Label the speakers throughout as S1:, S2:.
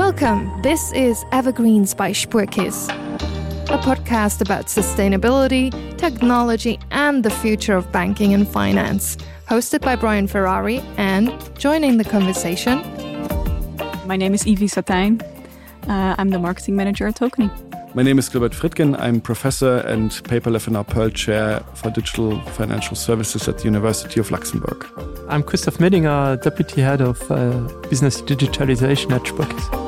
S1: Welcome. This is Evergreens by Spuerkeess, a podcast about sustainability, technology, and the future of banking and finance. Hosted by Brian Ferrari and joining the conversation.
S2: My name is Evie Satijn. Uh, I'm the marketing manager at Tokeny.
S3: My name is Gilbert Fritgen. I'm professor and Paper Lefener Pearl Chair for Digital Financial Services at the University of Luxembourg.
S4: I'm Christoph Medinger, Deputy Head of uh, Business Digitalization at Spuckis.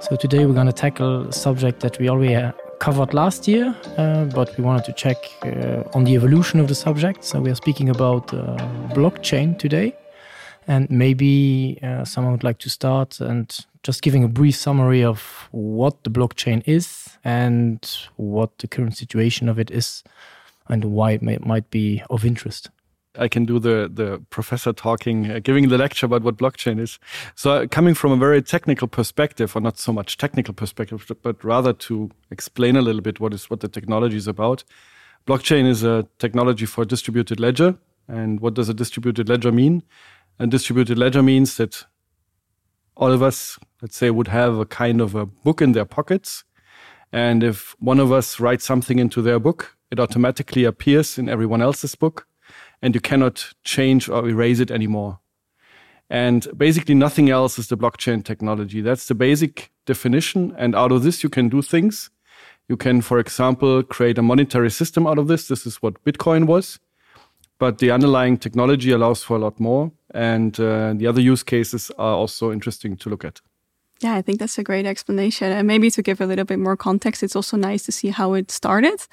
S5: So today we're going to tackle a subject that we already uh, covered last year, uh, but we wanted to check uh, on the evolution of the subject. So we are speaking about uh, blockchain today. And maybe uh, someone would like to start and just giving a brief summary of what the blockchain is and what the current situation of it is and why it may, might be of interest.
S3: I can do the the professor talking, uh, giving the lecture about what blockchain is. So uh, coming from a very technical perspective, or not so much technical perspective, but rather to explain a little bit what is what the technology is about. Blockchain is a technology for distributed ledger. And what does a distributed ledger mean? A distributed ledger means that all of us, let's say, would have a kind of a book in their pockets. And if one of us writes something into their book, it automatically appears in everyone else's book and you cannot change or erase it anymore. And basically nothing else is the blockchain technology. That's the basic definition. And out of this, you can do things. You can, for example, create a monetary system out of this. This is what Bitcoin was. But the underlying technology allows for a lot more. And uh, the other use cases are also interesting to look at.
S2: Yeah, I think that's a great explanation. And maybe to give a little bit more context, it's also nice to see how it started.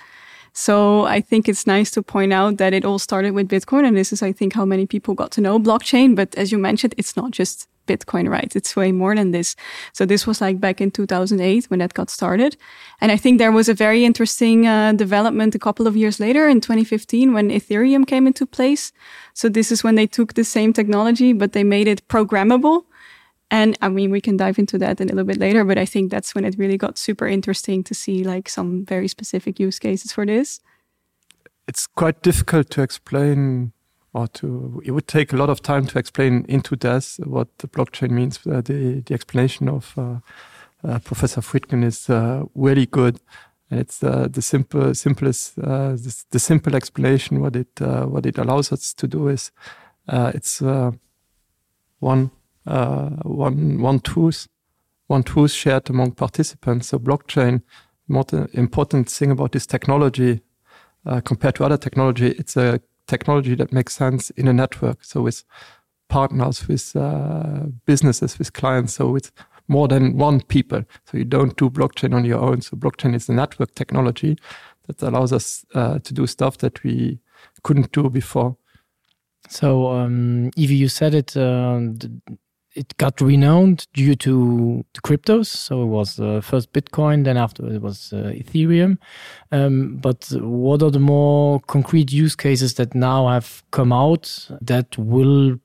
S2: So I think it's nice to point out that it all started with Bitcoin. And this is, I think, how many people got to know blockchain. But as you mentioned, it's not just Bitcoin, right? It's way more than this. So this was like back in 2008 when that got started. And I think there was a very interesting uh, development a couple of years later in 2015 when Ethereum came into place. So this is when they took the same technology, but they made it programmable. And I mean, we can dive into that in a little bit later, but I think that's when it really got super interesting to see like some very specific use cases for this.
S4: It's quite difficult to explain or to it would take a lot of time to explain into this what the blockchain means. Uh, the, the explanation of uh, uh, Professor Friedkin is uh, really good. And it's uh, the simple simplest uh, the, the simple explanation what it uh, what it allows us to do is uh, it's uh, one uh, one one truth one truth shared among participants so blockchain more important thing about this technology uh, compared to other technology it's a technology that makes sense in a network so with partners with uh, businesses with clients so with more than one people so you don't do blockchain on your own so blockchain is a network technology that allows us uh, to do stuff that we couldn't do before
S5: so um Evie, you said it uh, it got renowned due to the cryptos so it was uh, first bitcoin then after it was uh, ethereum um, but what are the more concrete use cases that now have come out that will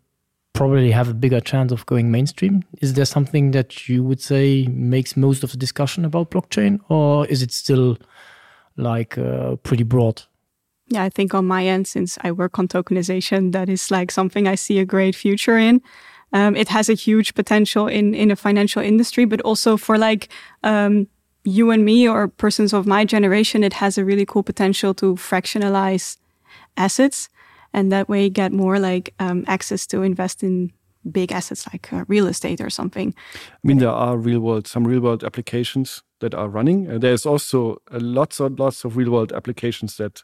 S5: probably have a bigger chance of going mainstream is there something that you would say makes most of the discussion about blockchain or is it still like uh, pretty broad
S2: Yeah, I think on my end since I work on tokenization that is like something I see a great future in um, it has a huge potential in in a financial industry but also for like um, you and me or persons of my generation it has a really cool potential to fractionalize assets and that way get more like um, access to invest in big assets like uh, real estate or something
S3: I mean there are real world some real world applications that are running uh, there's also uh, lots and lots of real world applications that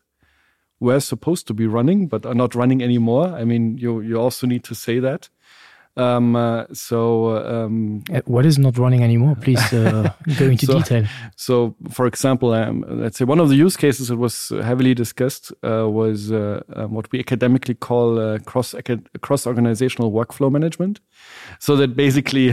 S3: were supposed to be running but are not running anymore I mean you you also need to say that Um, uh, so um,
S5: uh, what is not running anymore please uh, go into
S3: so,
S5: detail
S3: so for example um, let's say one of the use cases that was heavily discussed uh, was uh, um, what we academically call uh, cross cross organizational workflow management so that basically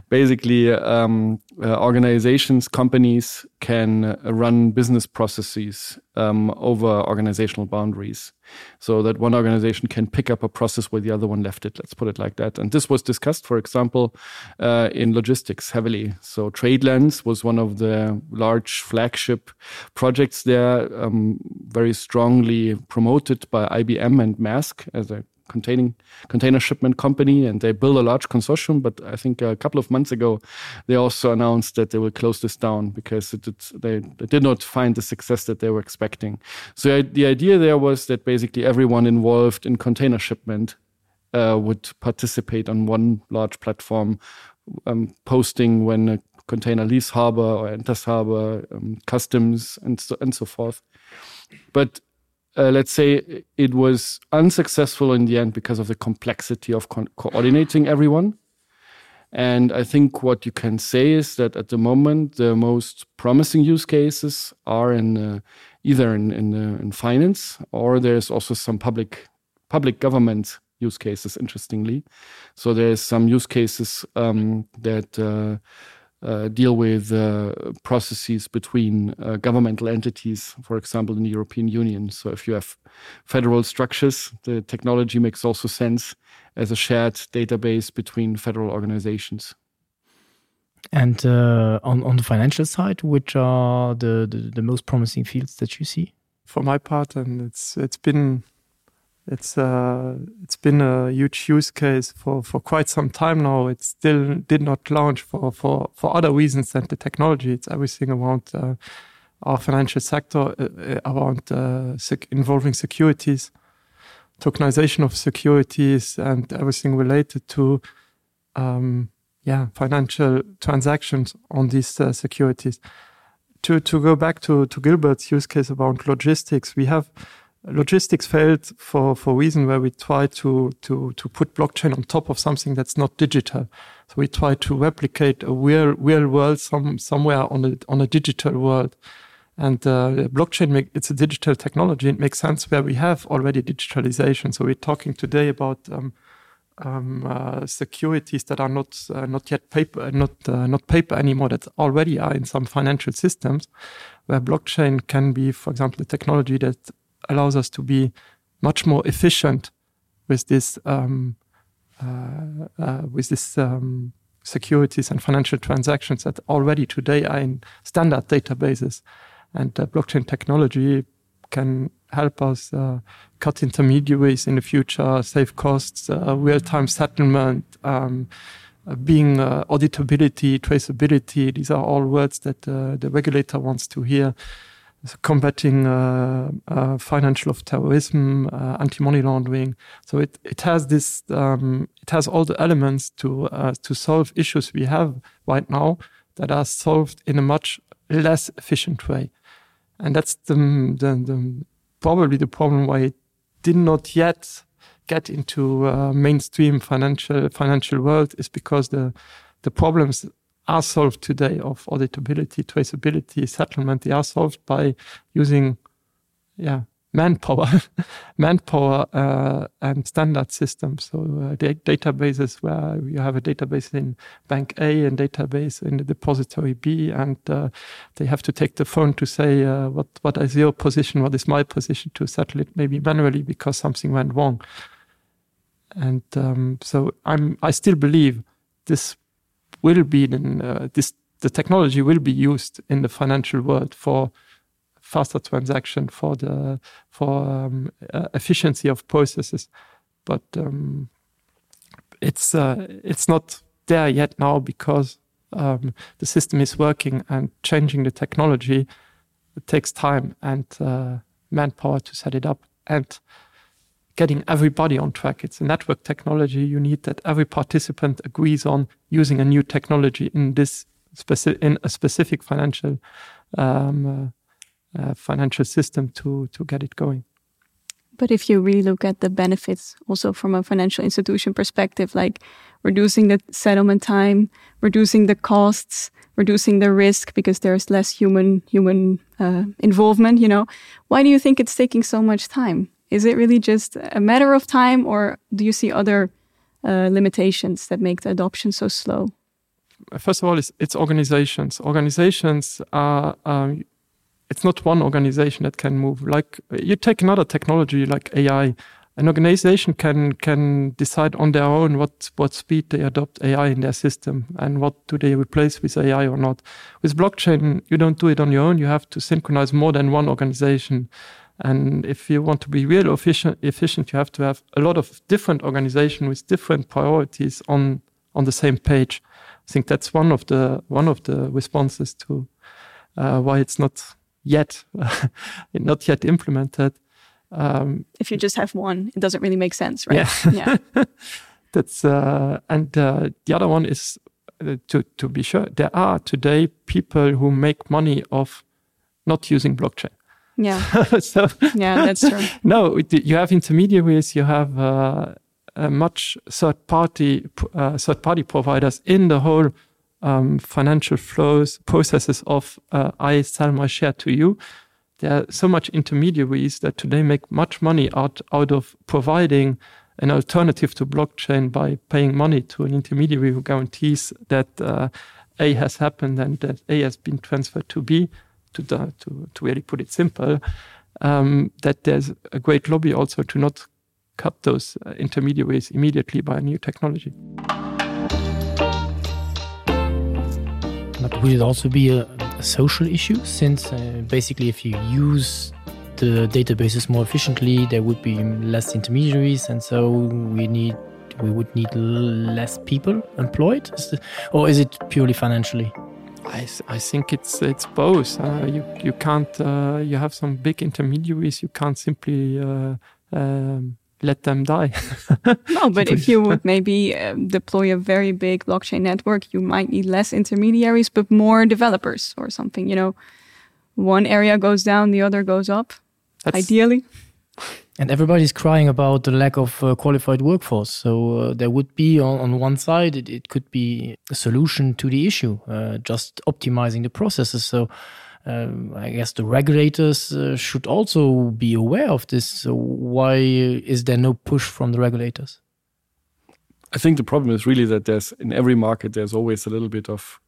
S3: basically um, uh, organizations companies can uh, run business processes um, over organizational boundaries so that one organization can pick up a process where the other one left it let's put it like that and this was discussed for example uh, in logistics heavily so tradelands was one of the large flagship projects there um, very strongly promoted by IBM and mask as a containing container shipment company, and they built a large consortium. But I think a couple of months ago, they also announced that they will close this down because it, it, they, they did not find the success that they were expecting. So the idea there was that basically everyone involved in container shipment uh, would participate on one large platform, um, posting when a container leaves harbor or enters harbor, um, customs, and so, and so forth. But uh, let's say it was unsuccessful in the end because of the complexity of co coordinating everyone. And I think what you can say is that at the moment, the most promising use cases are in uh, either in, in, uh, in finance or there's also some public public government use cases, interestingly. So there's some use cases um, that uh, uh, deal with uh, processes between uh, governmental entities, for example, in the European Union. So if you have federal structures, the technology makes also sense as a shared database between federal organizations.
S5: And uh, on, on the financial side, which are the, the, the most promising fields that you see?
S4: For my part, and it's it's been it's uh, it's been a huge use case for for quite some time now. It still did not launch for for for other reasons than the technology. It's everything around uh, our financial sector uh, uh around uh, sec involving securities, tokenization of securities, and everything related to um, yeah financial transactions on these uh, securities. To to go back to to Gilbert's use case about logistics, we have logistics failed for for reason where we try to to to put blockchain on top of something that's not digital so we try to replicate a real real world some somewhere on a on a digital world and uh, blockchain make, it's a digital technology it makes sense where we have already digitalization so we're talking today about um, um, uh, securities that are not uh, not yet paper not uh, not paper anymore that already are in some financial systems where blockchain can be for example the technology that allows us to be much more efficient with this um, uh, uh, with this um, securities and financial transactions that already today are in standard databases and uh, blockchain technology can help us uh, cut intermediaries in the future, save costs, uh, real-time settlement, um, uh, being uh, auditability, traceability. These are all words that uh, the regulator wants to hear. So combating uh, uh, financial of terrorism, uh, anti-money laundering. So it, it has this um, it has all the elements to uh, to solve issues we have right now that are solved in a much less efficient way. And that's the, the, the probably the problem why it did not yet get into uh, mainstream financial financial world is because the the problems are solved today of auditability, traceability, settlement, they are solved by using yeah, manpower, manpower uh, and standard systems. So uh, databases where you have a database in bank A and database in the depository B, and uh, they have to take the phone to say uh, what what is your position, what is my position to settle it maybe manually because something went wrong. And um, so I'm I still believe this will be in, uh, this the technology will be used in the financial world for faster transaction for the for um, uh, efficiency of processes but um, it's uh, it's not there yet now because um, the system is working and changing the technology it takes time and uh, manpower to set it up and getting everybody on track it's a network technology you need that every participant agrees on using a new technology in this specific in a specific financial um, uh, uh, financial system to to get it going.
S2: But if you really look at the benefits also from a financial institution perspective, like reducing the settlement time, reducing the costs, reducing the risk because there's less human human uh, involvement, you know, why do you think it's taking so much time? Is it really just a matter of time or do you see other uh, limitations that make the adoption so slow?
S4: First of all, it's, it's organizations. Organizations are um, it's not one organization that can move. Like you take another technology like AI, an organization can can decide on their own what what speed they adopt AI in their system and what do they replace with AI or not. With blockchain, you don't do it on your own. You have to synchronize more than one organization. And if you want to be real efficient, efficient you have to have a lot of different organizations with different priorities on, on the same page. I think that's one of the, one of the responses to uh, why it's not yet not yet implemented.
S2: Um, if you just have one, it doesn't really make sense, right?
S4: Yeah. yeah. that's uh, and uh, the other one is uh, to, to be sure there are today people who make money off not using blockchain.
S2: Yeah.
S4: so
S2: yeah, that's true.
S4: no, you have intermediaries, you have uh, uh, much third party uh, third party providers in the whole um, financial flows processes of uh, I sell my share to you. There are so much intermediaries that today make much money out, out of providing an alternative to blockchain by paying money to an intermediary who guarantees that uh, A has happened and that A has been transferred to B to, the, to, to really put it simple, um, that there's a great lobby also to not cut those uh, intermediaries immediately by a new technology.
S5: But would it also be a, a social issue since uh, basically if you use the databases more efficiently, there would be less intermediaries and so we need we would need less people employed is the, or is it purely financially?
S4: I, th I think it's it's both. Uh, you you can't uh, you have some big intermediaries you can't simply uh, um, let them die.
S2: no, but if you would maybe um, deploy a very big blockchain network, you might need less intermediaries, but more developers or something. You know, one area goes down, the other goes up. That's ideally.
S5: And everybody's crying about the lack of uh, qualified workforce. So uh, there would be on, on one side, it, it could be a solution to the issue, uh, just optimizing the processes. So um, I guess the regulators uh, should also be aware of this. So why is there no push from the regulators?
S3: I think the problem is really that there's in every market there's always a little bit of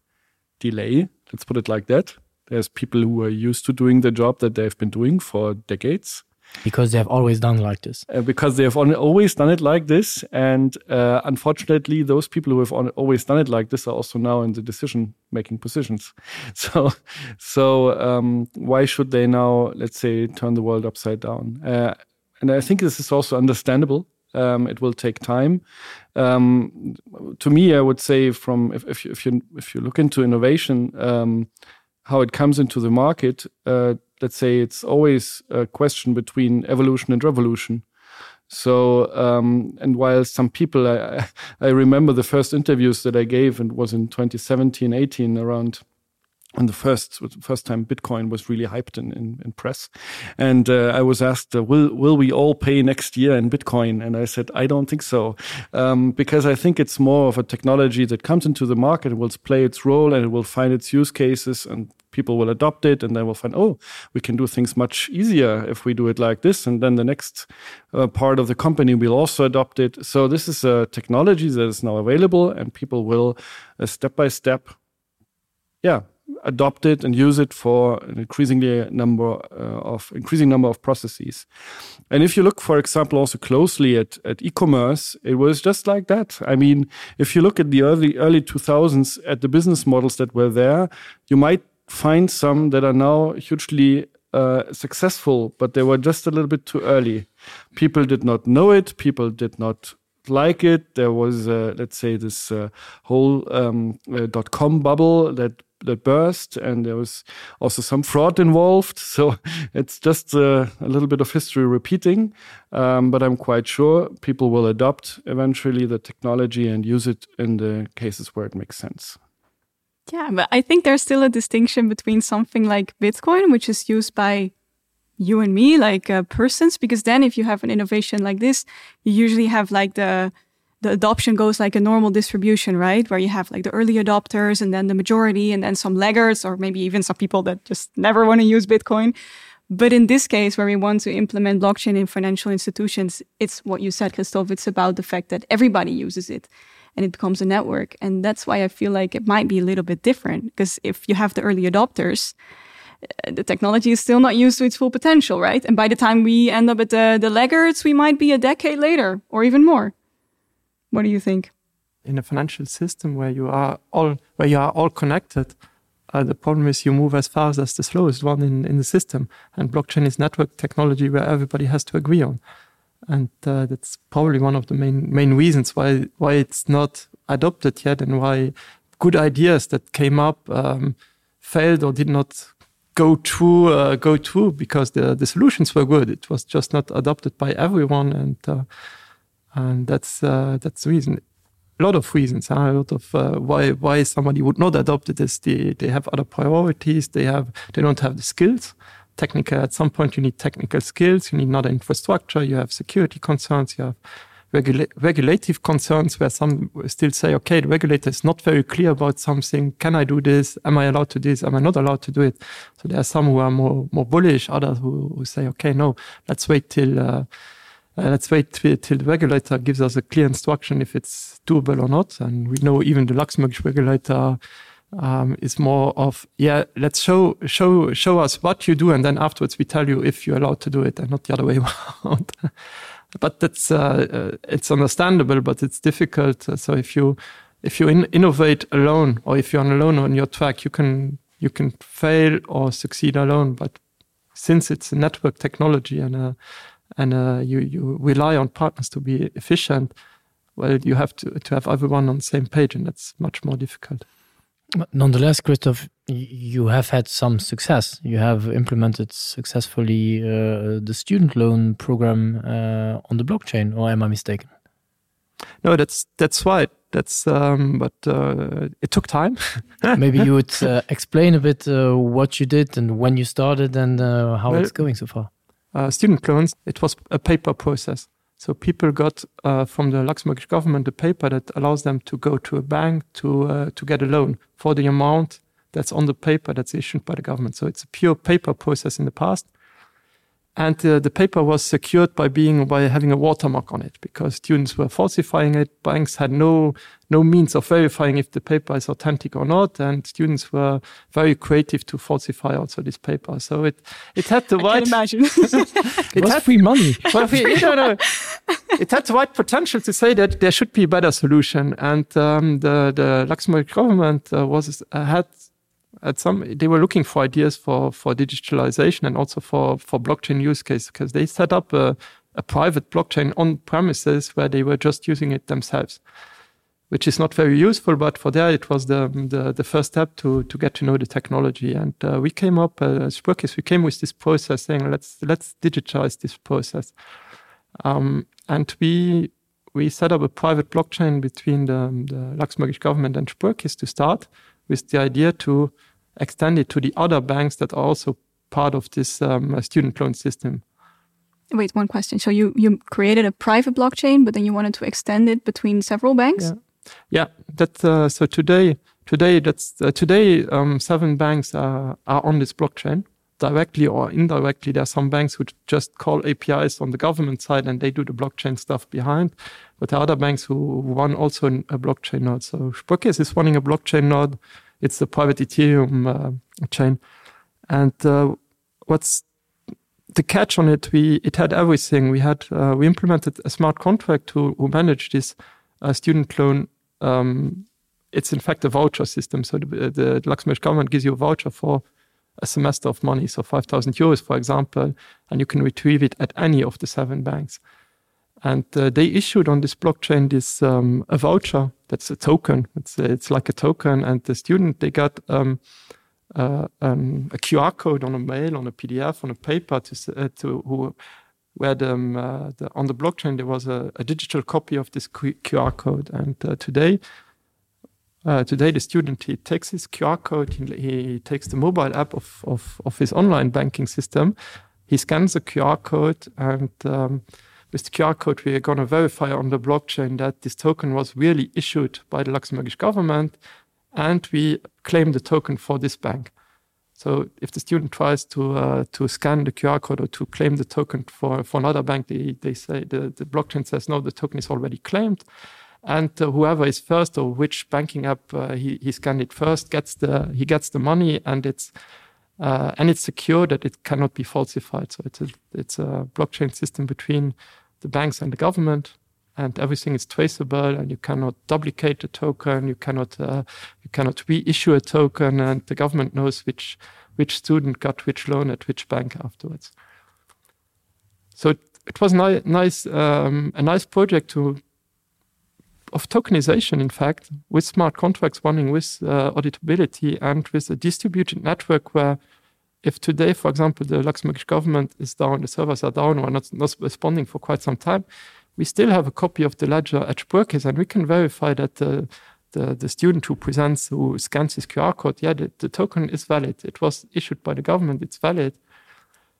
S3: delay. Let's put it like that. There's people who are used to doing the job that they've been doing for decades
S5: because they have always done like this
S3: uh, because they have always done it like this and uh, unfortunately those people who have always done it like this are also now in the decision making positions so so um, why should they now let's say turn the world upside down uh, and I think this is also understandable um, it will take time um, to me I would say from if, if, you, if you if you look into innovation um, how it comes into the market uh, let's say it's always a question between evolution and revolution. So um, and while some people I, I remember the first interviews that I gave and was in 2017 18 around when the first first time Bitcoin was really hyped in, in, in press. And uh, I was asked, uh, will, will we all pay next year in Bitcoin? And I said, I don't think so, um, because I think it's more of a technology that comes into the market and will play its role and it will find its use cases and people will adopt it and they will find oh we can do things much easier if we do it like this and then the next uh, part of the company will also adopt it so this is a technology that is now available and people will uh, step by step yeah adopt it and use it for an increasingly number uh, of increasing number of processes and if you look for example also closely at at e-commerce it was just like that i mean if you look at the early early 2000s at the business models that were there you might find some that are now hugely uh, successful, but they were just a little bit too early. People did not know it, people did not like it. There was, uh, let's say, this uh, whole um, uh, dot com bubble that that burst, and there was also some fraud involved. So it's just uh, a little bit of history repeating. Um, but I'm quite sure people will adopt eventually the technology and use it in the cases where it makes sense.
S2: Yeah, but I think there's still a distinction between something like Bitcoin, which is used by you and me, like uh, persons, because then if you have an innovation like this, you usually have like the the adoption goes like a normal distribution, right? Where you have like the early adopters and then the majority and then some laggards or maybe even some people that just never want to use Bitcoin. But in this case, where we want to implement blockchain in financial institutions, it's what you said, Christoph, it's about the fact that everybody uses it and it becomes a network. And that's why I feel like it might be a little bit different because if you have the early adopters, uh, the technology is still not used to its full potential, right? And by the time we end up at the, the laggards, we might be a decade later or even more. What do you think?
S4: In a financial system where you are all where you are all connected, Uh, the problem is you move as fast as the slowest one in, in the system. And blockchain is network technology where everybody has to agree on. And uh, that's probably one of the main, main reasons why, why it's not adopted yet and why good ideas that came up um, failed or did not go through uh, go through because the, the solutions were good. It was just not adopted by everyone and uh, and that's uh, that's the reason a lot of reasons huh? a lot of uh, why why somebody would not adopt it is they, they have other priorities they have they don't have the skills technical at some point you need technical skills you need not infrastructure you have security concerns you have regula regulative concerns where some still say okay the regulator is not very clear about something can I do this am I allowed to do this am I not allowed to do it so there are some who are more more bullish others who, who say okay no let's wait till uh, Uh, let's wait till, till the regulator gives us a clear instruction if it's doable or not. And we know even the Luxembourg regulator um, is more of yeah, let's show show show us what you do, and then afterwards we tell you if you're allowed to do it, and not the other way around. but that's uh, uh, it's understandable, but it's difficult. So if you if you in innovate alone, or if you're on alone on your track, you can you can fail or succeed alone. But since it's a network technology and a and uh, you, you rely on partners to be efficient, well, you have to, to have everyone on the same page, and that's much more difficult.
S5: Nonetheless, Christoph, you have had some success. You have implemented successfully uh, the student loan program uh, on the blockchain, or am I mistaken?
S4: No, that's that's right. That's um, but uh, it took time.
S5: Maybe you would uh, explain a bit uh, what you did and when you started and uh, how well, it's going so far.
S4: Uh, student loans, it was a paper process. So people got uh, from the Luxembourg government a paper that allows them to go to a bank to, uh, to get a loan for the amount that's on the paper that's issued by the government. So it's a pure paper process in the past and uh, the paper was secured by being by having a watermark on it because students were falsifying it banks had no no means of verifying if the paper is authentic or not and students were very creative to falsify also this paper so it it had the
S2: I
S4: right
S2: imagine
S5: it, it was had, free money
S4: well, we, you know, it had the right potential to say that there should be a better solution and um, the the Luxembourg government uh, was uh, had at some they were looking for ideas for for digitalization and also for for blockchain use case because they set up a, a private blockchain on premises where they were just using it themselves which is not very useful but for there it was the the, the first step to to get to know the technology and uh, we came up uh, as Spurkis, we came with this process saying let's let's digitize this process um, and we we set up a private blockchain between the, the Luxembourgish government and Spurkis to start with the idea to extend it to the other banks that are also part of this um, student loan system.
S2: Wait, one question. So you, you created a private blockchain, but then you wanted to extend it between several banks?
S4: Yeah, yeah that, uh, so today, today, that's, uh, today um, seven banks are, are on this blockchain directly or indirectly. There are some banks who just call APIs on the government side and they do the blockchain stuff behind. But there are other banks who run also a blockchain node. So Sparkasse is running a blockchain node. It's the private Ethereum uh, chain. And uh, what's the catch on it, we it had everything. We had uh, we implemented a smart contract to who manage this uh, student loan. Um, it's in fact a voucher system. So the, the Luxembourg government gives you a voucher for a semester of money, so 5,000 euros, for example, and you can retrieve it at any of the seven banks. And uh, they issued on this blockchain this um, a voucher that's a token. It's, it's like a token, and the student they got um, uh, um, a QR code on a mail, on a PDF, on a paper to, uh, to who, where the, um, uh, the, on the blockchain there was a, a digital copy of this QR code. And uh, today, uh, today the student he takes his QR code, he, he takes the mobile app of, of, of his online banking system, he scans the QR code and um, with the QR code we are going to verify on the blockchain that this token was really issued by the Luxembourgish government and we claim the token for this bank. So if the student tries to uh, to scan the QR code or to claim the token for, for another bank, they, they say the, the blockchain says no, the token is already claimed. And uh, whoever is first or which banking app uh, he, he scanned it first gets the he gets the money and it's uh, and it's secure that it cannot be falsified. So it's a, it's a blockchain system between the banks and the government. And everything is traceable and you cannot duplicate the token, you cannot, uh, you cannot reissue a token and the government knows which, which student got which loan at which bank afterwards. So it, it was ni nice um, a nice project to of tokenization in fact with smart contracts running with uh, auditability and with a distributed network where if today for example the Luxembourgish government is down the servers are down or not not responding for quite some time we still have a copy of the ledger at Spurkes and we can verify that the the, the student who presents who scans his QR code yeah the, the token is valid it was issued by the government it's valid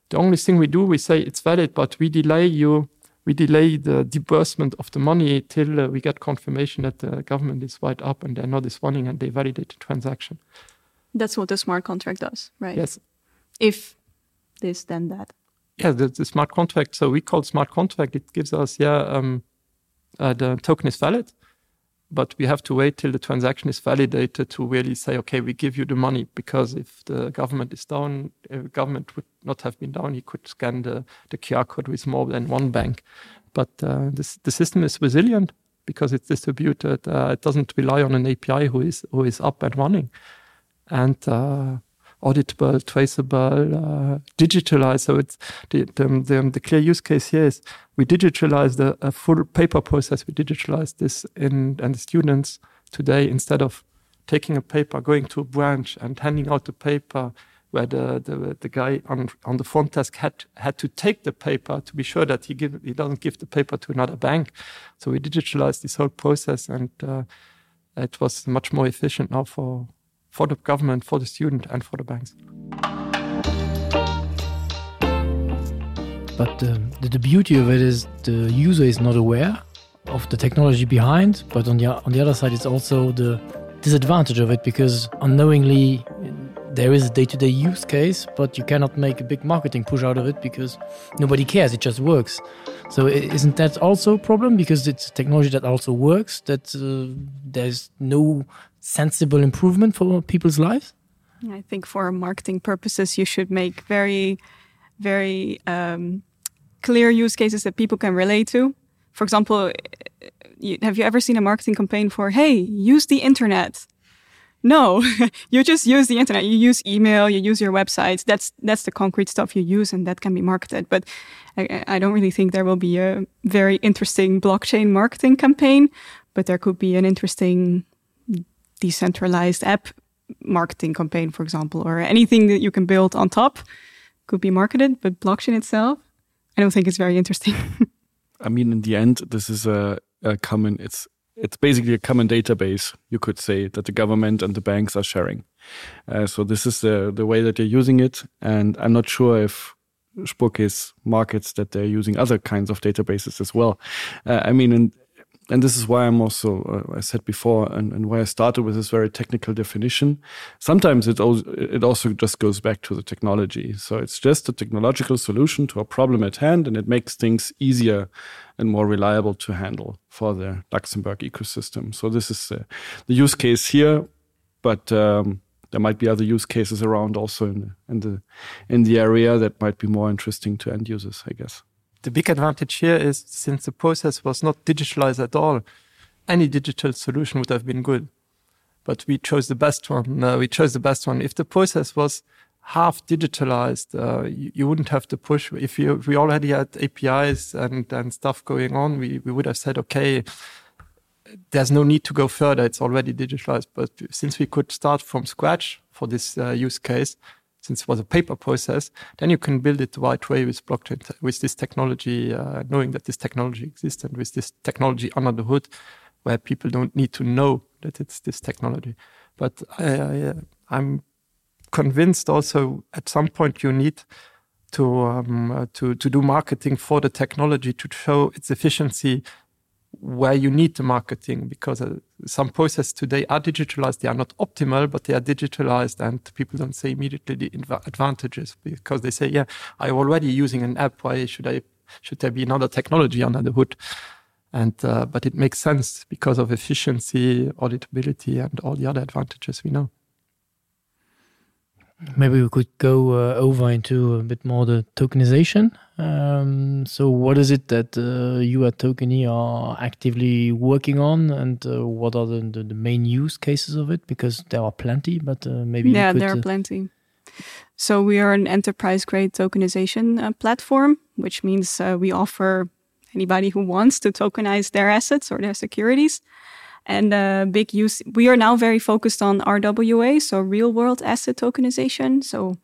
S4: the only thing we do we say it's valid but we delay you we delay the disbursement of the money till uh, we get confirmation that the government is wide up and they're not responding and they validate the transaction
S2: that's what the smart contract does right
S4: yes
S2: if this then that
S4: yeah the, the smart contract so we call smart contract it gives us yeah um uh, the token is valid but we have to wait till the transaction is validated to really say okay we give you the money because if the government is down if the government would not have been down he could scan the the QR code with more than one bank but uh, this the system is resilient because it's distributed uh, it doesn't rely on an API who is who is up and running and uh, auditable traceable uh, digitalized so it's the, the, the, the clear use case here is we digitalize the a full paper process we digitalize this in and the students today instead of taking a paper going to a branch and handing out the paper where the, the, the guy on, on the front desk had had to take the paper to be sure that he give he doesn't give the paper to another bank so we digitalized this whole process and uh, it was much more efficient now for for the government for the student and for the banks
S5: but um, the, the beauty of it is the user is not aware of the technology behind but on the on the other side it's also the disadvantage of it because unknowingly there is a day-to-day -day use case but you cannot make a big marketing push out of it because nobody cares it just works so isn't that also a problem because it's technology that also works that uh, there's no sensible improvement for people's lives
S2: I think for marketing purposes you should make very very um, clear use cases that people can relate to for example you, have you ever seen a marketing campaign for hey use the internet no you just use the internet you use email you use your websites that's that's the concrete stuff you use and that can be marketed but I, I don't really think there will be a very interesting blockchain marketing campaign but there could be an interesting decentralized app marketing campaign for example or anything that you can build on top could be marketed but blockchain itself I don't think it's very interesting
S3: I mean in the end this is a, a common it's it's basically a common database you could say that the government and the banks are sharing uh, so this is the the way that they're using it and I'm not sure if Spurkis markets that they're using other kinds of databases as well uh, I mean and and this is why I'm also uh, I said before and, and why I started with this very technical definition sometimes it also, it also just goes back to the technology so it's just a technological solution to a problem at hand and it makes things easier and more reliable to handle for the Luxembourg ecosystem so this is uh, the use case here but um, there might be other use cases around also in the, in the in the area that might be more interesting to end users I guess
S4: the big advantage here is since the process was not digitalized at all, any digital solution would have been good. But we chose the best one. Uh, we chose the best one. If the process was half digitalized, uh, you, you wouldn't have to push. If, you, if we already had APIs and, and stuff going on, we, we would have said, okay, there's no need to go further. It's already digitalized. But since we could start from scratch for this uh, use case, since it was a paper process, then you can build it the right way with blockchain, with this technology, uh, knowing that this technology exists and with this technology under the hood, where people don't need to know that it's this technology. But I, I, I'm convinced also at some point you need to, um, uh, to, to do marketing for the technology to show its efficiency where you need the marketing because uh, some processes today are digitalized they are not optimal but they are digitalized and people don't say immediately the advantages because they say yeah I'm already using an app why should I should there be another technology under the hood and uh, but it makes sense because of efficiency auditability and all the other advantages we know.
S5: Maybe we could go uh, over into a bit more the tokenization. Um, so what is it that uh, you at Tokeny are actively working on and uh, what are the, the, the main use cases of it? Because there are plenty, but uh, maybe
S2: yeah,
S5: could,
S2: there are
S5: uh,
S2: plenty. So we are an enterprise grade tokenization uh, platform, which means uh, we offer anybody who wants to tokenize their assets or their securities. And uh, big use we are now very focused on RWA, so real world asset tokenization. So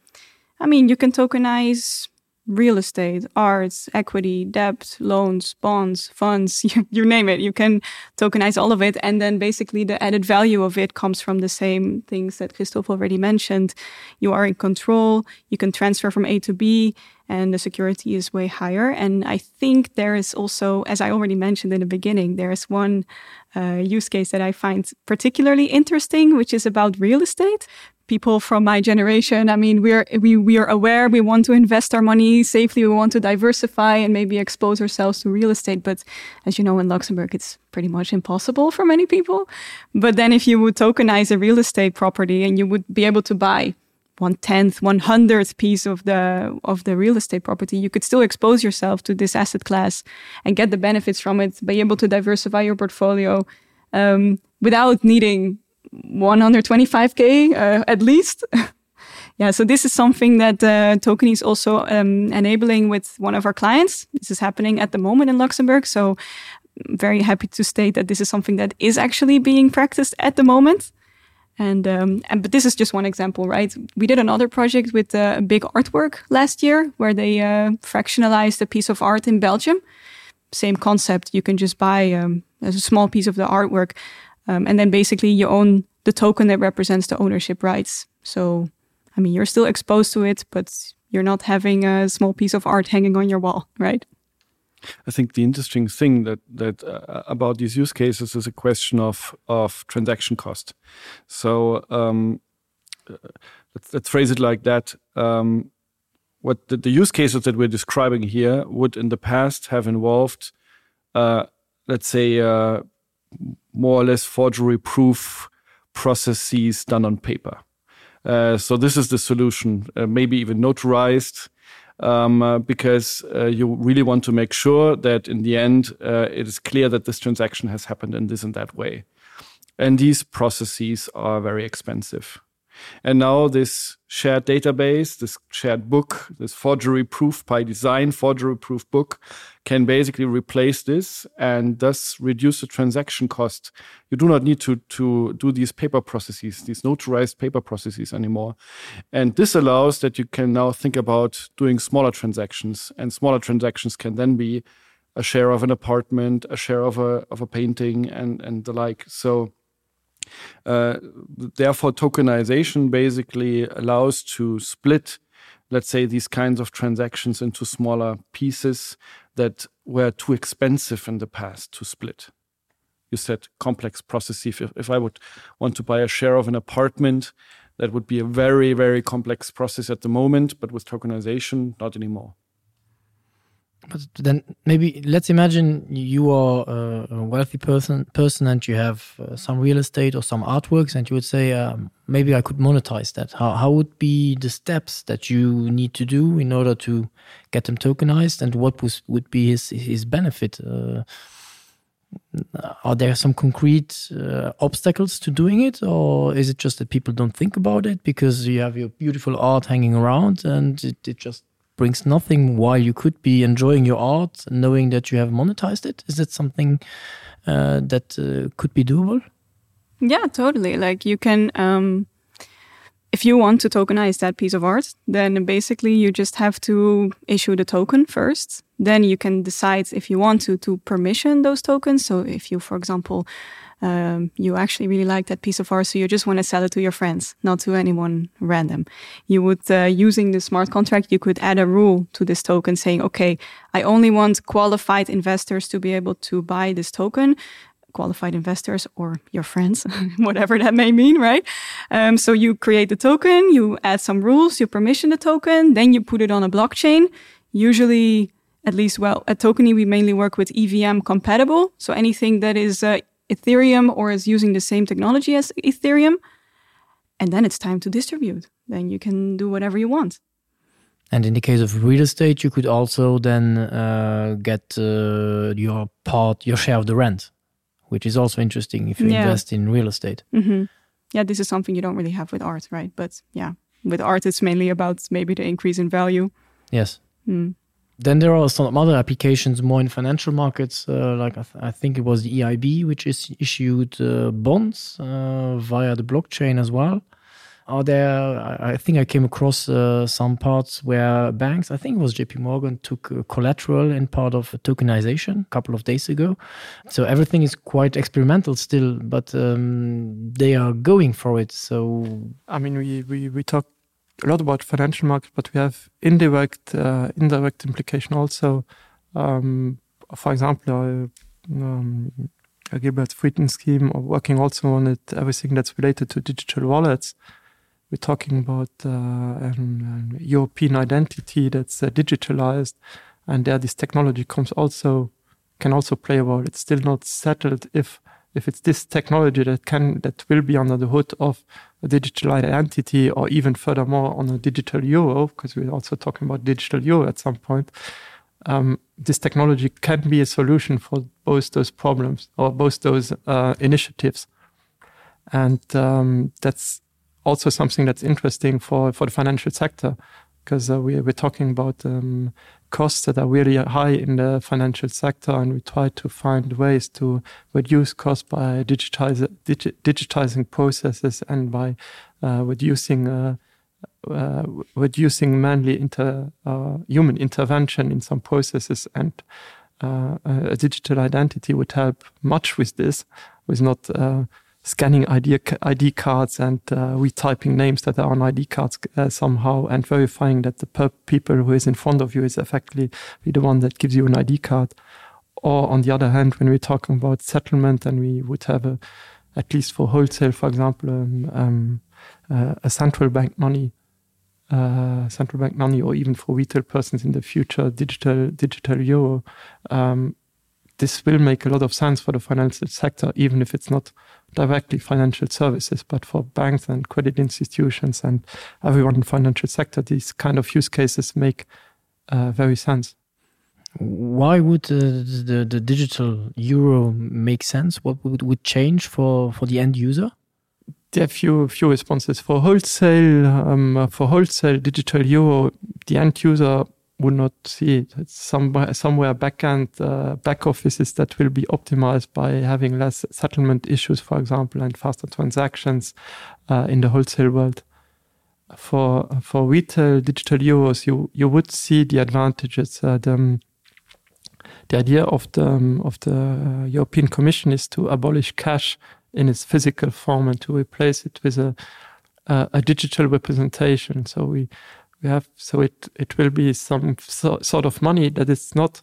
S2: I mean you can tokenize real estate, arts, equity, debt, loans, bonds, funds, you, you name it. You can tokenize all of it. And then basically the added value of it comes from the same things that Christoph already mentioned. You are in control, you can transfer from A to B, and the security is way higher. And I think there is also, as I already mentioned in the beginning, there is one uh, use case that I find particularly interesting, which is about real estate people from my generation i mean we're we we are aware we want to invest our money safely we want to diversify and maybe expose ourselves to real estate but as you know in luxembourg it's pretty much impossible for many people but then if you would tokenize a real estate property and you would be able to buy one tenth one hundredth piece of the of the real estate property you could still expose yourself to this asset class and get the benefits from it be able to diversify your portfolio um without needing 125k uh, at least. yeah, so this is something that uh, Token is also um, enabling with one of our clients. This is happening at the moment in Luxembourg. So I'm very happy to state that this is something that is actually being practiced at the moment. And, um, and but this is just one example, right? We did another project with uh, a big artwork last year where they uh, fractionalized a piece of art in Belgium. Same concept, you can just buy um, a small piece of the artwork um, and then basically you own the token that represents the ownership rights. So, I mean, you're still exposed to it, but you're not having a small piece of art hanging on your wall, right?
S3: I think the interesting thing that that uh, about these use cases is a question of of transaction cost. So um, uh, let's, let's phrase it like that. Um, what the, the use cases that we're describing here would in the past have involved, uh, let's say, uh, more or less forgery proof processes done on paper. Uh, so this is the solution, uh, maybe even notarized, um, uh, because uh, you really want to make sure that in the end uh, it is clear that this transaction has happened in this and that way. And these processes are very expensive. And now this shared database, this shared book, this forgery proof by design forgery proof book can basically replace this and thus reduce the transaction cost. You do not need to, to do these paper processes, these notarized paper processes anymore. And this allows that you can now think about doing smaller transactions and smaller transactions can then be a share of an apartment, a share of a, of a painting and, and the like. So, Uh, therefore, tokenization basically allows to split, let's say, these kinds of transactions into smaller pieces that were too expensive in the past to split. You said complex process. If, if I would want to buy a share of an apartment, that would be a very, very complex process at the moment, but with tokenization, not anymore.
S5: But then maybe let's imagine you are a wealthy person person and you have uh, some real estate or some artworks and you would say um, maybe I could monetize that. How, how would be the steps that you need to do in order to get them tokenized and what was, would be his, his benefit? Uh, are there some concrete uh, obstacles to doing it or is it just that people don't think about it because you have your beautiful art hanging around and it, it just brings nothing while you could be enjoying your art knowing that you have monetized it is that something uh, that uh, could be doable
S2: yeah totally like you can um if you want to tokenize that piece of art then basically you just have to issue the token first then you can decide if you want to to permission those tokens so if you for example um, you actually really like that piece of art so you just want to sell it to your friends not to anyone random you would uh, using the smart contract you could add a rule to this token saying okay I only want qualified investors to be able to buy this token qualified investors or your friends whatever that may mean right um, so you create the token you add some rules you permission the token then you put it on a blockchain usually at least well at tokeny we mainly work with EVM compatible so anything that is uh, Ethereum or is using the same technology as Ethereum and then it's time to distribute. Then you can do whatever you want.
S5: And in the case of real estate, you could also then uh, get uh, your part, your share of the rent, which is also interesting if you yeah. invest in real estate.
S2: Mm -hmm. Yeah, this is something you don't really have with art, right? But yeah, with art, it's mainly about maybe the increase in value.
S5: Yes.
S2: Mm.
S5: Then there are some other applications more in financial markets, uh, like I, th I think it was the EIB, which is issued uh, bonds uh, via the blockchain as well. Are there I, I think I came across uh, some parts where banks, I think it was JP Morgan, took uh, collateral in part of tokenization a couple of days ago. So everything is quite experimental still, but um, they are going for it. So
S4: I mean we, we, we talk a lot about financial market, but we have indirect uh, indirect implication also. Um, for example, uh, um, a Gilbert Frieden scheme or working also on it, everything that's related to digital wallets. We're talking about uh, an, an European identity that's uh, digitalized, and there this technology comes also can also play a role. It's still not settled if if it's this technology that can that will be under the hood of a digital identity or even furthermore on a digital euro, because we're also talking about digital euro at some point. Um, this technology can be a solution for both those problems or both those uh, initiatives. And um, that's also something that's interesting for, for the financial sector because uh, we, we're talking about um, costs that are really high in the financial sector and we try to find ways to reduce costs by digitize, digi digitizing processes and by uh, reducing uh, uh, reducing manly inter, uh, human intervention in some processes and uh, a digital identity would help much with this with not uh, scanning ID, ID cards and uh, retyping names that are on ID cards uh, somehow and verifying that the per people who is in front of you is effectively the one that gives you an ID card. Or on the other hand, when we're talking about settlement and we would have a, at least for wholesale, for example, um, um, uh, a central bank money, uh, central bank money, or even for retail persons in the future, digital digital euro, um, this will make a lot of sense for the financial sector, even if it's not directly financial services, but for banks and credit institutions and everyone in financial sector, these kind of use cases make uh, very sense.
S5: Why would uh, the, the digital euro make sense? What would, would change for, for the end user?
S4: There are few few responses for wholesale um, for wholesale digital euro the end user would not see it. It's somewhere somewhere backend uh, back offices that will be optimized by having less settlement issues, for example, and faster transactions uh, in the wholesale world. For for retail digital euros, you you would see the advantages. Uh, the, um, the idea of the um, of the uh, European Commission is to abolish cash in its physical form and to replace it with a a, a digital representation. So we we have so it it will be some so, sort of money that is not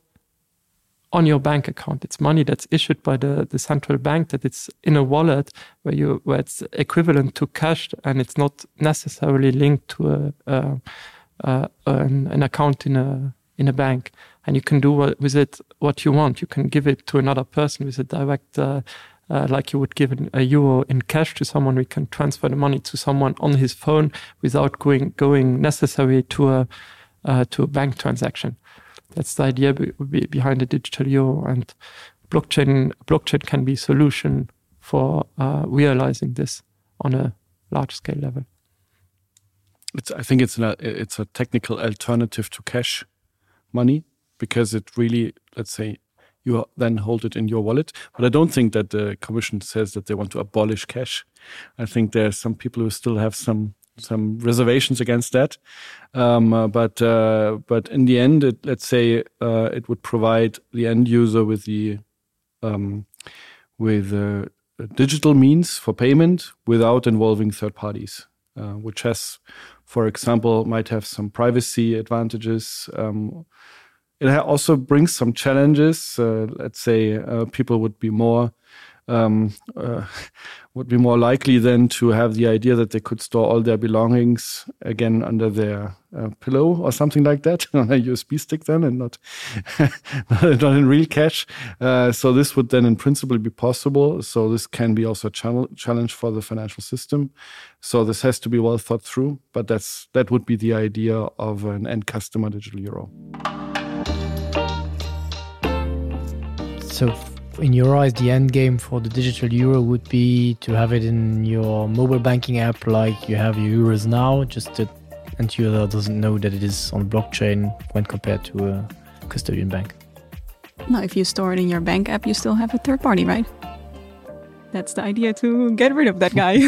S4: on your bank account it's money that's issued by the the central bank that it's in a wallet where you where it's equivalent to cash and it's not necessarily linked to a, a, a an, an account in a in a bank and you can do what, with it what you want you can give it to another person with a direct uh, uh, like you would give an, a euro in cash to someone we can transfer the money to someone on his phone without going going necessary to a uh, to a bank transaction that's the idea be, be behind the digital euro and blockchain blockchain can be solution for uh, realizing this on a large scale level
S3: it's I think it's an, it's a technical alternative to cash money because it really let's say you then hold it in your wallet but I don't think that the commission says that they want to abolish cash I think there are some people who still have some some reservations against that um, uh, but uh, but in the end it, let's say uh, it would provide the end user with the um, with uh, digital means for payment without involving third parties uh, which has for example might have some privacy advantages um, it also brings some challenges uh, let's say uh, people would be more uh, um, uh, would be more likely then to have the idea that they could store all their belongings again under their uh, pillow or something like that on a USB stick then and not not in real cash. Uh, so this would then in principle be possible. So this can be also a channel challenge for the financial system. So this has to be well thought through, but that's that would be the idea of an end customer digital euro.
S5: So in your eyes, the end game for the digital euro would be to have it in your mobile banking app like you have your euros now, just that and user doesn't know that it is on blockchain when compared to a custodian bank.
S2: Now, if you store it in your bank app, you still have a third party, right? That's the idea to get rid of that guy.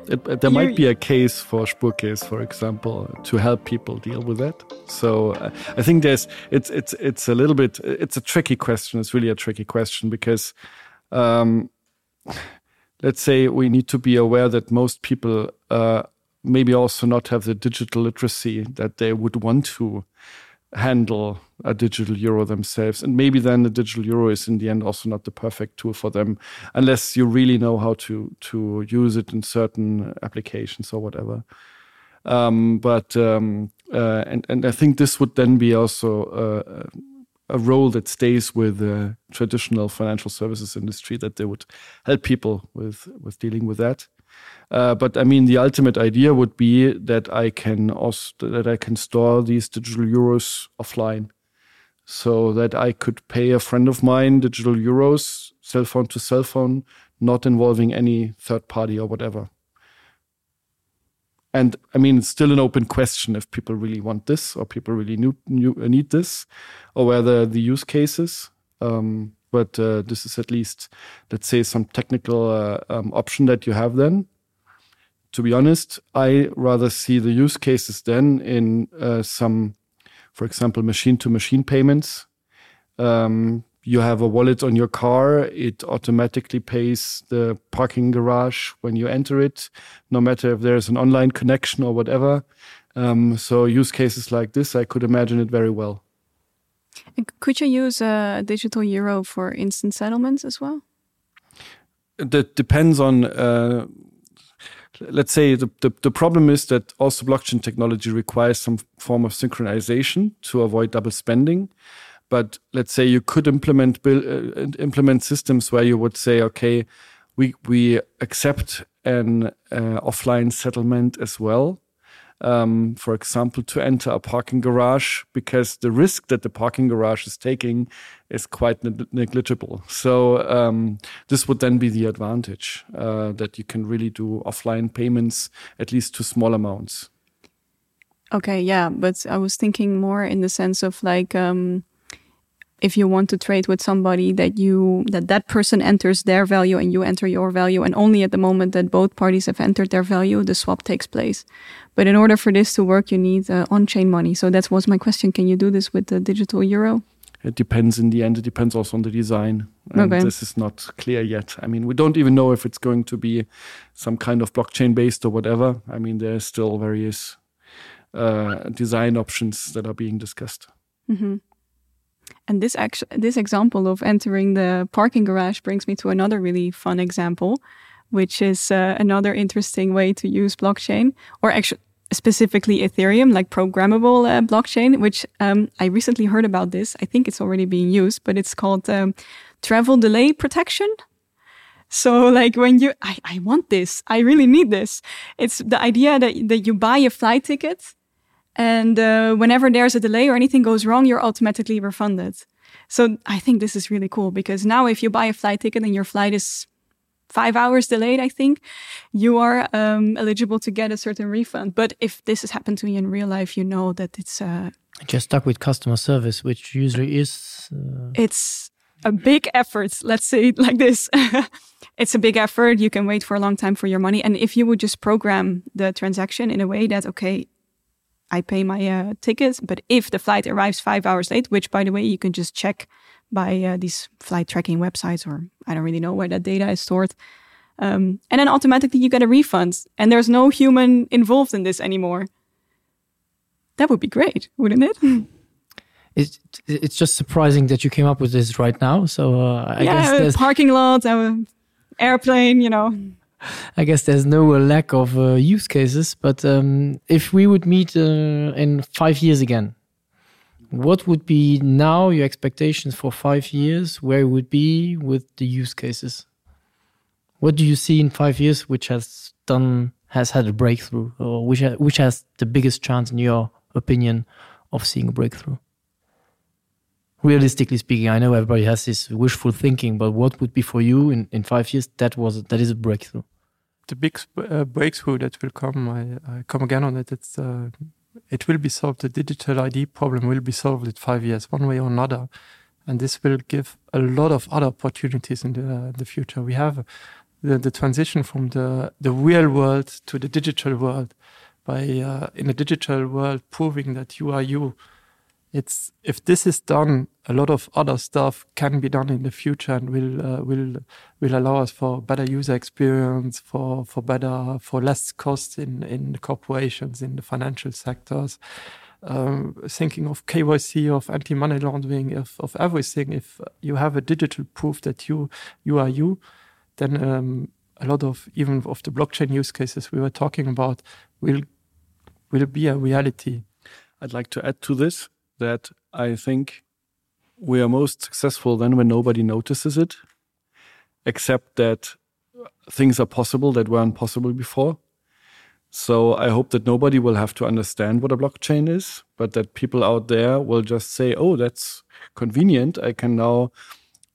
S3: It, there might be a case for Spurcase, for example, to help people deal with that. So uh, I think there's it's it's it's a little bit it's a tricky question. It's really a tricky question because um, let's say we need to be aware that most people uh, maybe also not have the digital literacy that they would want to handle a digital euro themselves and maybe then the digital euro is in the end also not the perfect tool for them unless you really know how to to use it in certain applications or whatever um, but um, uh, and and I think this would then be also uh, a role that stays with the traditional financial services industry that they would help people with with dealing with that uh, but I mean the ultimate idea would be that I can also that I can store these digital euros offline so that I could pay a friend of mine digital euros cell phone to cell phone not involving any third party or whatever and I mean it's still an open question if people really want this or people really knew, knew, uh, need this or whether the use cases um, but uh, this is at least let's say some technical uh, um, option that you have then to be honest I rather see the use cases then in uh, some for example machine to machine payments um, you have a wallet on your car it automatically pays the parking garage when you enter it no matter if there's an online connection or whatever um, so use cases like this I could imagine it very well
S2: and could you use a digital euro for instant settlements as well
S3: that depends on uh, let's say the, the the problem is that also blockchain technology requires some form of synchronization to avoid double spending but let's say you could implement bill uh, implement systems where you would say okay we we accept an uh, offline settlement as well um, for example to enter a parking garage because the risk that the parking garage is taking is quite ne negligible so um, this would then be the advantage uh, that you can really do offline payments at least to small amounts
S2: okay yeah but I was thinking more in the sense of like um, if you want to trade with somebody that you that that person enters their value and you enter your value and only at the moment that both parties have entered their value the swap takes place but in order for this to work you need uh, on-chain money so that was my question can you do this with the digital euro
S3: it depends in the end it depends also on the design and okay. this is not clear yet I mean we don't even know if it's going to be some kind of blockchain based or whatever I mean there are still various uh, design options that are being discussed
S2: mm -hmm. And this actually this example of entering the parking garage brings me to another really fun example, which is uh, another interesting way to use blockchain or actually specifically Ethereum, like programmable uh, blockchain, which um, I recently heard about this. I think it's already being used, but it's called um, travel delay protection. So like when you I, I want this, I really need this. It's the idea that, that you buy a flight ticket and uh, whenever there's a delay or anything goes wrong, you're automatically refunded. So I think this is really cool because now if you buy a flight ticket and your flight is five hours delayed, I think you are um, eligible to get a certain refund. But if this has happened to you in real life, you know that it's uh,
S5: just stuck with customer service, which usually is
S2: uh... it's a big effort. Let's say it like this. it's a big effort. You can wait for a long time for your money. And if you would just program the transaction in a way that, okay, I pay my uh, tickets, but if the flight arrives five hours late, which by the way, you can just check by uh, these flight tracking websites, or I don't really know where that data is stored. Um, and then automatically you get a refund and there's no human involved in this anymore. That would be great, wouldn't it?
S5: It, it's just surprising that you came up with this right now. So uh, I
S2: yeah,
S5: guess
S2: parking lot, uh, airplane, you know.
S5: I guess there's no uh, lack of uh, use cases, but um, if we would meet uh, in five years again, what would be now your expectations for five years, where it would be with the use cases? What do you see in five years which has done has had a breakthrough or which, ha which has the biggest chance in your opinion of seeing a breakthrough? Realistically speaking, I know everybody has this wishful thinking, but what would be for you in, in five years that was that is a breakthrough?
S4: The big uh, breakthrough that will come, I, I come again on it, it's uh, it will be solved. The digital ID problem will be solved in five years, one way or another. And this will give a lot of other opportunities in the, uh, the future. We have the, the transition from the, the real world to the digital world by uh, in the digital world proving that you are you. It's if this is done, a lot of other stuff can be done in the future and will uh, will will allow us for better user experience, for for better for less costs in in the corporations, in the financial sectors. Um, thinking of KYC, of anti-money laundering, of, of everything. If you have a digital proof that you you are you, then um, a lot of even of the blockchain use cases we were talking about will will be a reality.
S3: I'd like to add to this that I think we are most successful then when nobody notices it, except that things are possible that weren't possible before. So I hope that nobody will have to understand what a blockchain is, but that people out there will just say, "Oh, that's convenient. I can now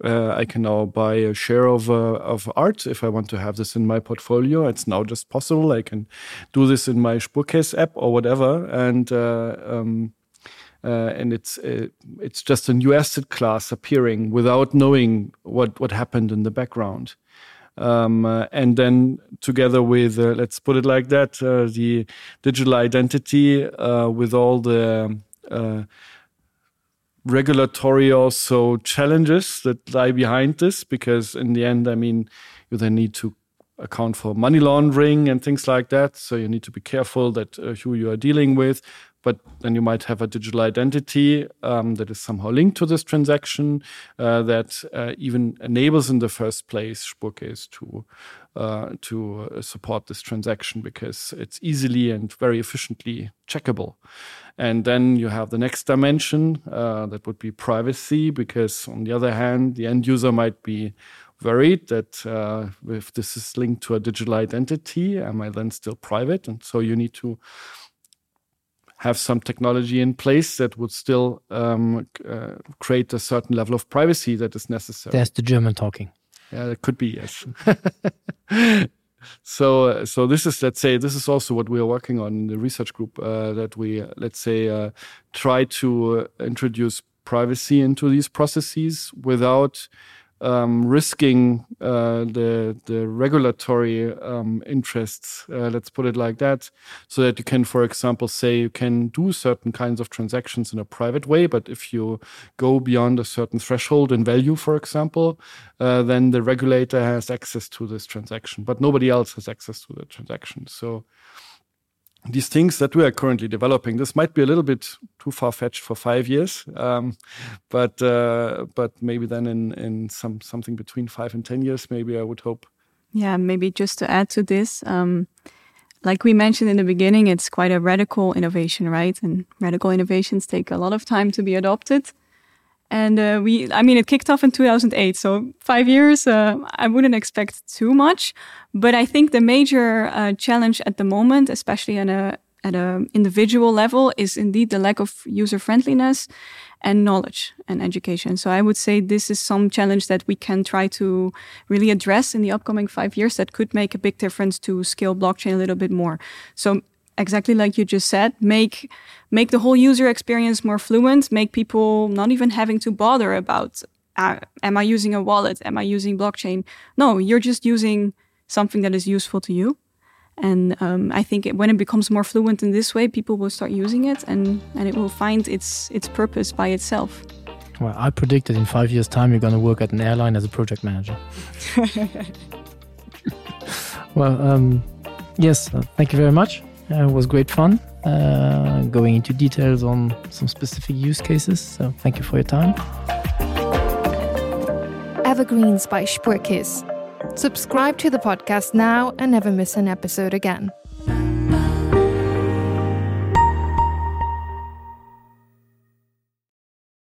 S3: uh, I can now buy a share of uh, of art if I want to have this in my portfolio. It's now just possible. I can do this in my Spurcase app or whatever." And uh, um, uh, and it's uh, it's just a new asset class appearing without knowing what what happened in the background. Um, uh, and then together with uh, let's put it like that uh, the digital identity uh, with all the uh, regulatory also challenges that lie behind this because in the end I mean you then need to account for money laundering and things like that so you need to be careful that uh, who you are dealing with but then you might have a digital identity um, that is somehow linked to this transaction uh, that uh, even enables in the first place Spurcase to uh, to uh, support this transaction because it's easily and very efficiently checkable. And then you have the next dimension uh, that would be privacy because on the other hand, the end user might be worried that uh, if this is linked to a digital identity, am I then still private? And so you need to have some technology in place that would still um, uh, create a certain level of privacy that is necessary.
S5: There's the German talking.
S3: Yeah, it could be yes. so so this is let's say this is also what we are working on in the research group uh, that we let's say uh, try to uh, introduce privacy into these processes without um, risking uh, the the regulatory um, interests uh, let's put it like that so that you can for example say you can do certain kinds of transactions in a private way but if you go beyond a certain threshold in value for example uh, then the regulator has access to this transaction but nobody else has access to the transaction so these things that we are currently developing this might be a little bit too far-fetched for five years um, but uh, but maybe then in in some something between five and ten years maybe I would hope
S2: yeah maybe just to add to this um, like we mentioned in the beginning it's quite a radical innovation right and radical innovations take a lot of time to be adopted and uh, we I mean it kicked off in 2008 so five years uh, I wouldn't expect too much but I think the major uh, challenge at the moment especially in a at a individual level is indeed the lack of user friendliness and knowledge and education so I would say this is some challenge that we can try to really address in the upcoming five years that could make a big difference to scale blockchain a little bit more so exactly like you just said make make the whole user experience more fluent make people not even having to bother about uh, am I using a wallet am I using blockchain no you're just using something that is useful to you and um, I think it, when it becomes more fluent in this way people will start using it and and it will find its its purpose by itself
S5: well I predicted in five years time you're gonna work at an airline as a project manager well um, yes uh, thank you very much. Uh, it was great fun uh, going into details on some specific use cases. So thank you for your time.
S1: Evergreens by Spuerkeess. Subscribe to the podcast now and never miss an episode again.